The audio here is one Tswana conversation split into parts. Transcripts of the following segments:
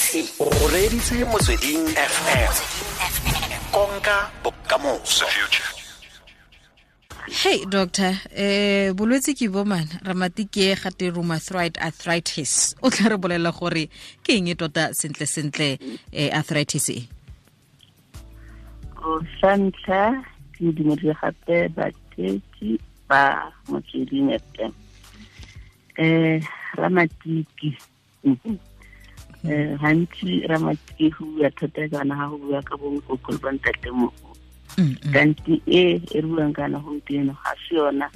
O reditse Motsweding FM, konka bokamoso. Hey doctor, bolwetse ke bo man ramatiki e gate rheumatoid arthritis. O tla re bolela gore ke eng e tota sentle sentle arthritis e? O sa ntlha ke dumedise gape batheetsi ba Motsweding FM. Ramatiki. Gantsi ramatiki go bua thata kana ga go bua ka bonkoko le bontatemogolo. Kanti e re buang kana gompieno ga se yona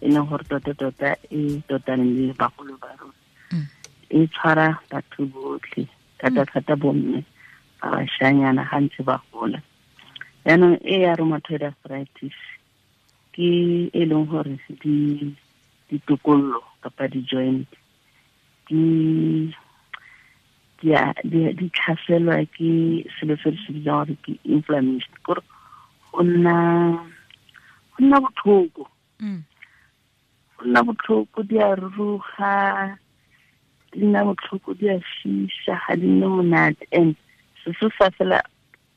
e leng gore tota-tota e totaneng le bagolo ba rona. E tshwara batho botlhe, thata-thata bomme ba bašanyana ga ntse ba gola. Jaanong e ya rheumatoid arthritis ke e leng gore ditokololo kapa di-joint di tlhaselwa ke selo se re se bitsang gore ke inflammation, kore go nna botlhoko. Go nna botlhoko, di a ruruga, di nna botlhoko, di a fisa, ga di nne monate. And se se sa fela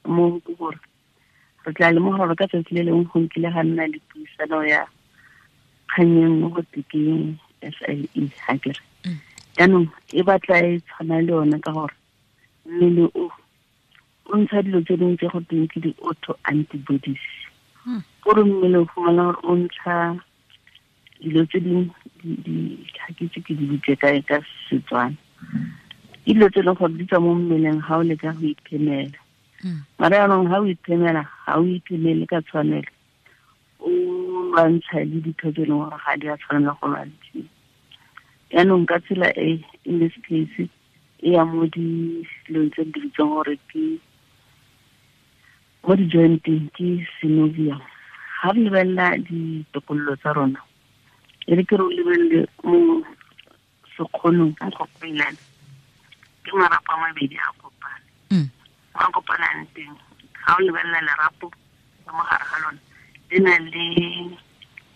mo ke gore re tla lemoga gore ka tsatsi le lengwe go nkile ga nna le puisano ya kgang e nngwe go te ke SLE, ga ke re. Jaanong e batla e tshwana le yone ka gore mmele o ntsha dilo tse dingwe tse go teng ke di-auto antibodies. Kore mmele o fumana gore o ntsha dilo tse dingwe, ga ke itse ke di bitse kae ka Setswana. Ke dilo tse e leng gore di tswa mo mmeleng ga o leka go iphemela. Mara jaanong ga o iphemela, ga o iphemele ka tshwanelo, o lwantsha le ditho tse e leng gore ga di a tshwanela go lwantshiwa. Jaanong ka tsela e, in this case, e ya mo dilong tse di bitswang gore ke mo di-jointeng, ke synovium. Ga re lebelela ditokololo tsa rona, e re ke re o lebelele mo sekgonong, mo go peelane, ke marapo a mabedi a kopane. Mo a kopanang teng, ga o lebelela lerapo ka mo gare ga lona, le na le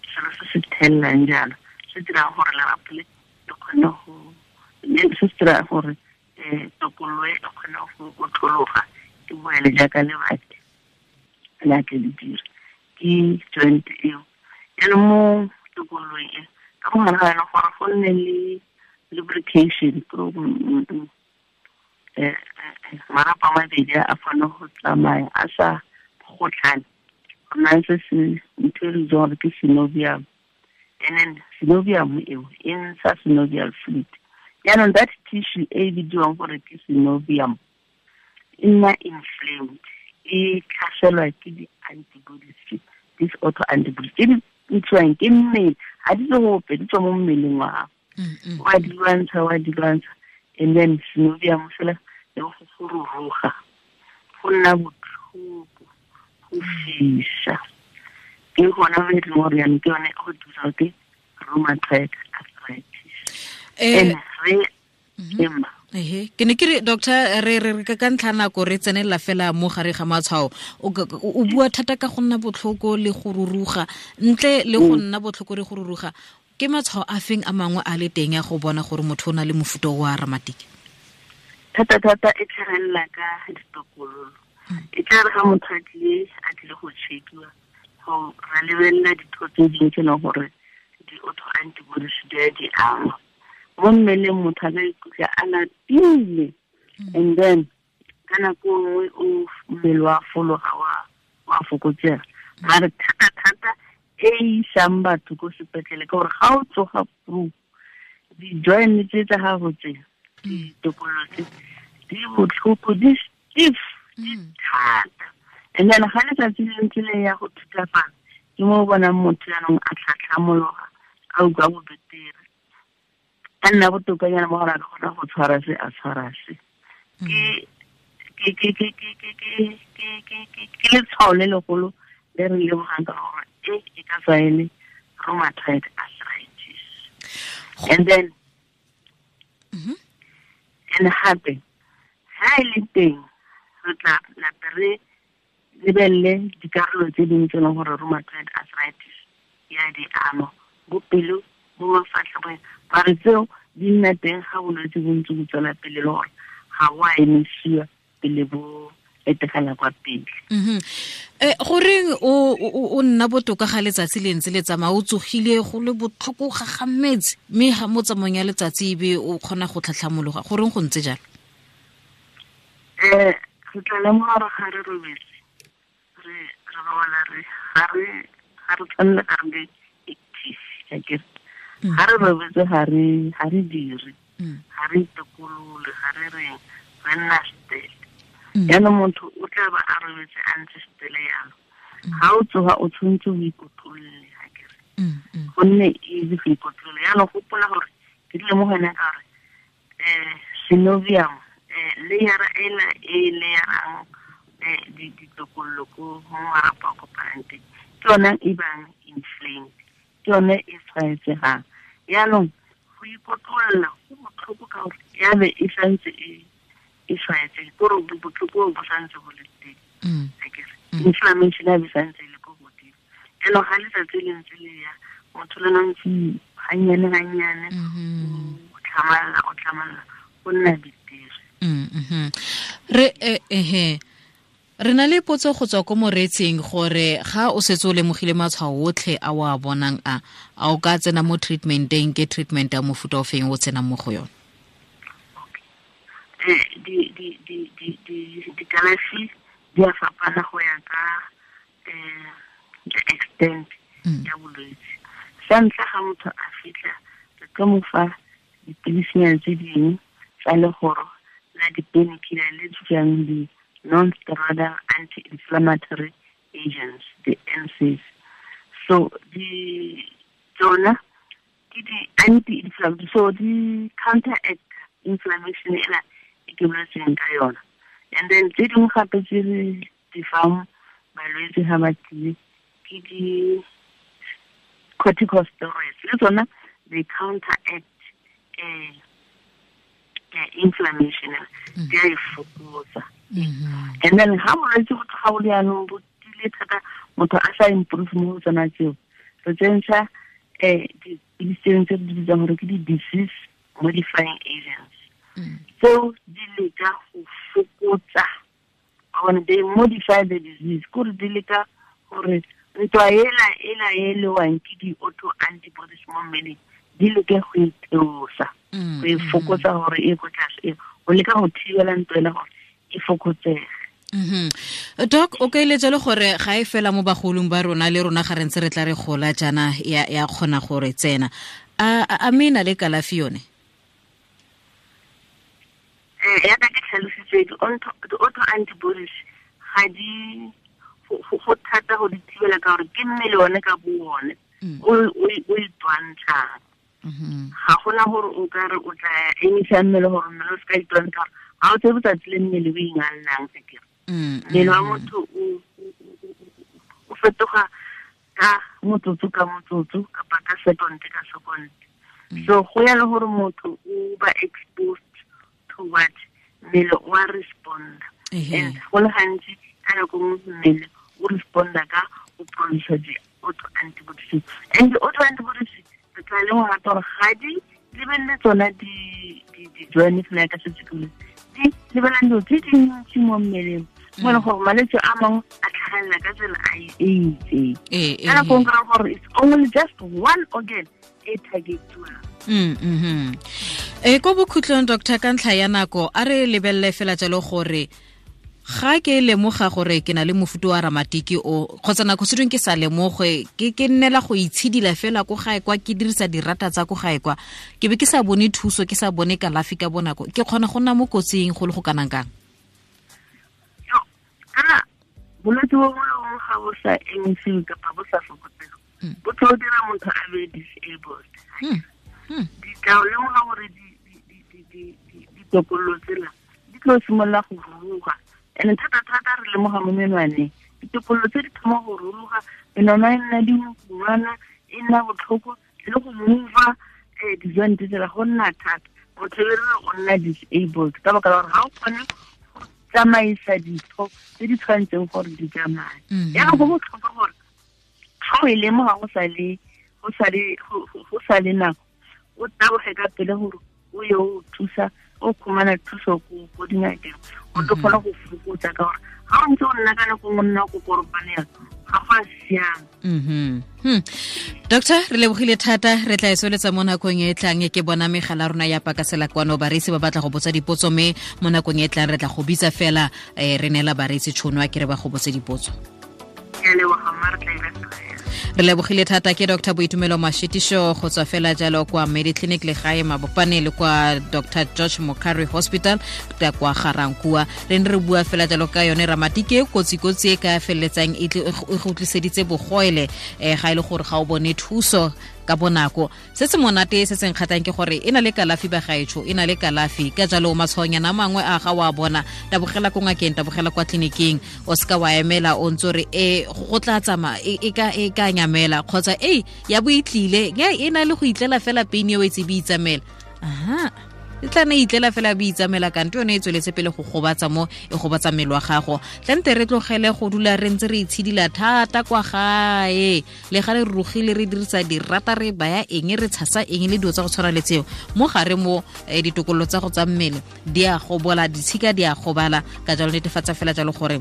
selo se se thelelang jalo, se dirang gore lerapo le le kgone go, le se se dirang gore, tokololo e kgone go otlologa, e boele jaaka lebati le a tle le dira. Ke joint eo. Jaanong mo tokololong e, ka mo gare ga yona gore go nne le lubrication, marapo a mabedi a kgone go tsamaya a sa gotlhane. Go na le se se ntho e re bitsang gore ke synovium. And then synovium eo e ntsha synovial fluid. Jaanong that tissue e bidiwang gore ke synovium e nna inflamed, e tlhaselwa ke di-antibodies, these auto antibodies tse di ntshiwang ke mmele, ga di tswe gope, di tswa mo mmeleng wa gago. Wa di lwantsha, wa di lwantsha, and then synovium fela le go ruruga, go nna botlhoko, go fisa. Ke gona mo e leng gore jaanong ke yone go thusa ke rheumatoid arthritis. And re ema. Ehe, ke ne ke re doctor, re re ka ntlha nako re tsenelela fela mo gare ga matshwao. O bua thata ka go nna botlhoko le go ruruga, ntle le go nna botlhoko le go ruruga, ke matshwao a feng a mangwe a le teng ya go bona gore motho o na le mofuta wa ramatiki? Thata thata e tlhagelela ka ditokololo. E tla re ga motho a tlile go check-iwa, go ra lebelela ditho tse dingwe tse e leng gore di-auto antibodies di a di ama. Mo mmeleng motho a ka ikutlwa a lapile, and then ka nako nngwe o mmele wa fologa, wa fokotsega. Mare thata-thata e isang batho ko sepetlele ke gore ga o tsoga flu, di-joint tse tsa gago tse, ditokololo tse, di botlhoko, di stiff, di thata. And then ga letsatsi le ntse le ya go thutafala, ke mo o bonang motho jaanong a tlhatlhamologa, a utlwa bobetere, a nna botokanyana mo gore a ka kgona go tshwara se, a tshwara se. Ke letshwao le legolo le re lemogang ka gore e ka tswa e le rheumatoid arthritis. And then, and gape, ha e le teng, re tla lape re lebelele dikarolo tse dingwe tse e leng gore rheumatoid arthritis ya di ama, bo pelo, bo mafatlha, bo eng. Mare tseo di nna teng ga bolwetse bo ntse bo tswela pele, le gore ga wa emisiwa pele bo etegela kwa pele. Goreng o nna botoka ga letsatsi le ntse le tsamaya, o tsogile go le botlhoko ga gametse, mme ga mo tsamaong ya letsatsi ebe o kgona go tlhatlhamologa, goreng go ntse jalo? Re tla lemoga gore ga re robetse, re robala, re ga re tshwanela ga re be active, akere ga re robetse ga re dire, ga re itokolole, ga re reng, re nna stele. Jaanong motho o tla ba a robetse a ntse stele yalo, ga o tsoga o tshwanetse o ikotlolle, akere gonne easy go ikotlolla. Jaanong gopola gore ke dile mo go ene ka gore synovium, layera ela e layerang ditokololo ko mo marapo a kopanang teng, ke yone e bang inflamed, ke yone e tshwaetsegang. Jaanong go ikotlolla go botlhoko ka gore ya be e santse e tshwaetsege, kore botlhoko bo santse bo le teng, akere inflammation ya be santse e le ko godimo. Jaanong ga letsatsi le ntse le ya, motho le ntse gannyane gannyane o tlhamalala go nna betere. Re na le potso go tswa ko moreetsing gore ga o setse o lemogile matshwao otlhe a o a bonang a o ka tsena mo treatmenteng, ke treatment ya mofuta o feng o tsenang mo go yone? Dikalafi di a fapana go ya ka the extent ya bolwetse. Sa ntlha ga motho a fitlha, re tlo mo fa dipilisinyana tse dingwe tsa legoro la di-painkiller le tswang di non-steroidal anti-inflammatory agents, the NSAIDs. So di tsona ke di anti-inflammatory, so di counteract inflammation ela e ke boletseng ka yona. And then tse dingwe gape tse re di fang balwetse ga ba tlile ke di corticosteroids, le tsona they counteract inflammation, di a e fokotsa. And then ha bolwetse bo tloga bo le jaanong bo tile thata, motho a sa improve mo go tsona tseo, re tsentsha dipilisi tse re di bitsang gore ke di-disease modifying agents. Tseo di leka go fokotsa, they modify the disease, kore di leka gore ntwa ela e lewang ke di-auto antibodies mo mmeleng di leke go itheosa, go e fokotsa gore e ko tlase, go leka go thibela ntwa ela gore e fokotsege. Doc, o ka eletsa le gore ga e fela mo bagolong ba rona, le rona ga re ntse re tla re gola jaana ya kgona gore tsena, a mme e na le kalafi yone? Yaka ke tlhalositse, di-auto antibodies ga di go thata go di thibela ka gore ke mmele one ka bo one o itwantshang. Ga gona gore o ka re o tla emisa mmele gore mmele o se ka itwantsha, ga o tsebe tsatsi le mmele o ingallang sekere. Mmele wa motho o fetoga ka motsotso ka motsotso kapa ka second ka second. So go ya le gore motho o ba exposed to what, mmele o a responda. And go le gantsi ka nako nngwe mmele o responda ka go produce di-auto antibodies. And di-auto antibodies re tla lemoga gape gore ga di lebelele tsona di-joint fela ka setse ke di lebelela dilo tse dintsi mo mmeleng, mo e leng gore malwetse a mangwe a tlhagelela ka tsela e itseng. Ka nako nngwe kry-a gore it's only just one organ e targetiwang. Ko bokhutlong, doctor, ka ntlha ya nako, a re lebelele fela jalo gore ga ke lemoga gore ke na le mofuta wa ramatiki o, kgotsa nako se dingwe ke sa lemoge, ke nnela go itshidila fela ko gae kwa, ke dirisa dirata tsa ko gae kwa, ke be ke sa bone thuso, ke sa bone kalafi ka bonako, ke kgona go nna mo kotsing go le go kanang kang? Kana bolwetse bo bongwe le bongwe ga bo sa emisiwe kapa bo sa fokotsege, bo tlo dira motho a be disabled. Di tla lemoga gore ditokololo tsela di tlo simolola go ruruga. And thata-thata re lemoga mo menwaneng, ditokololo tse di thoma go ruruga, menwana e nna dingwana, e nna botlhoko, le go mova di-joint tsela go nna thata. Motho e re o nna disabled ka baka la gore ga o kgone go tsamaisa ditho tse di tshwanetseng gore di tsamaye. Jaanong go botlhokwa gore ga o e lemoga go sa le nako, o taboge ka pele gore o ye o thusa, O khumana thuso ko dingakeng, o tlo kgona go fokotsa ka gore ga o ntse o nna ka nako nngwe nna ko koropanela ga go a siama. Doctor, re lebogile thata, re tla e tsweletsa mo nakong e tlang. Ke bona megala rona ya pakasela kwano, bareetsi ba batla go botsa dipotso, mme mo nakong e tlang re tla go bitsa fela, re neela bareetsi tšhono a ke re ba go botse dipotso. Re lebogile thata. Ke Dr Boitumelo Mashitiso go tswa fela jalo kwa Mediclinic Legae Mabopane le kwa Dr George Mokari Hospital ka kwa Garankua. Re ne re bua fela jalo ka yone ramatike, kotsi-kotsi e ka feleletsang e go tliseditse bogoele, ga e le gore ga o bone thuso ka bonako. Se se monate se se nkgatang ke gore e na le kalafi, bagaetsho, e na le kalafi. Ka jalo matshwaonyana a mangwe a ga wa bona, tabogela ko ngakeng, tabogela kwa tleliniking. O seka wa emela o ntse re e go tla tsamaya e ka nyamela, kgotsa e ya bo itlile, e na le go itlela fela pain eo e tse be itsamela. Aha, e tla ne itlela fela bo itsamela, kante yone e tsweletse pele go gobatsa mo e gobatsa mmele wa gago. Tlante re tlogele go dula re ntse re itshidila thata kwa gae, le ga re rurugile, re dirisa dirata, re baya eng, re tshasa eng le dilo tsa go tshwana le tseo mo gare mo, ditokololo tsa go tsa mmele di a gobola, ditshika di a gobala. Ka jalo netefatsa fela jalo gore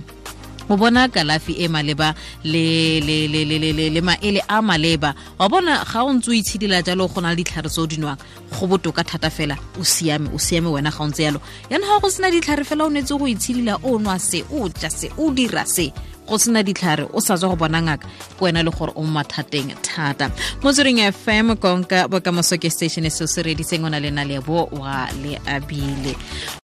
o bona kalafi e maleba le le le le le le maele a maleba. Wa bona ga o ntse o itshidila jalo, go na le ditlhare tse o di nwang, go botoka thata fela, o siame, o siame wena ga o ntse yalo. Yana ga go sena ditlhare fela, o netse go itshidila, o nwa se, o ja se, o dira se, go sena ditlhare, o sa tswa go bona ngaka, ke wena le gore o mathateng thata. Motsweding FM, konka bokamoso ke station se se reditseng, o na le Nalebo wa le abile.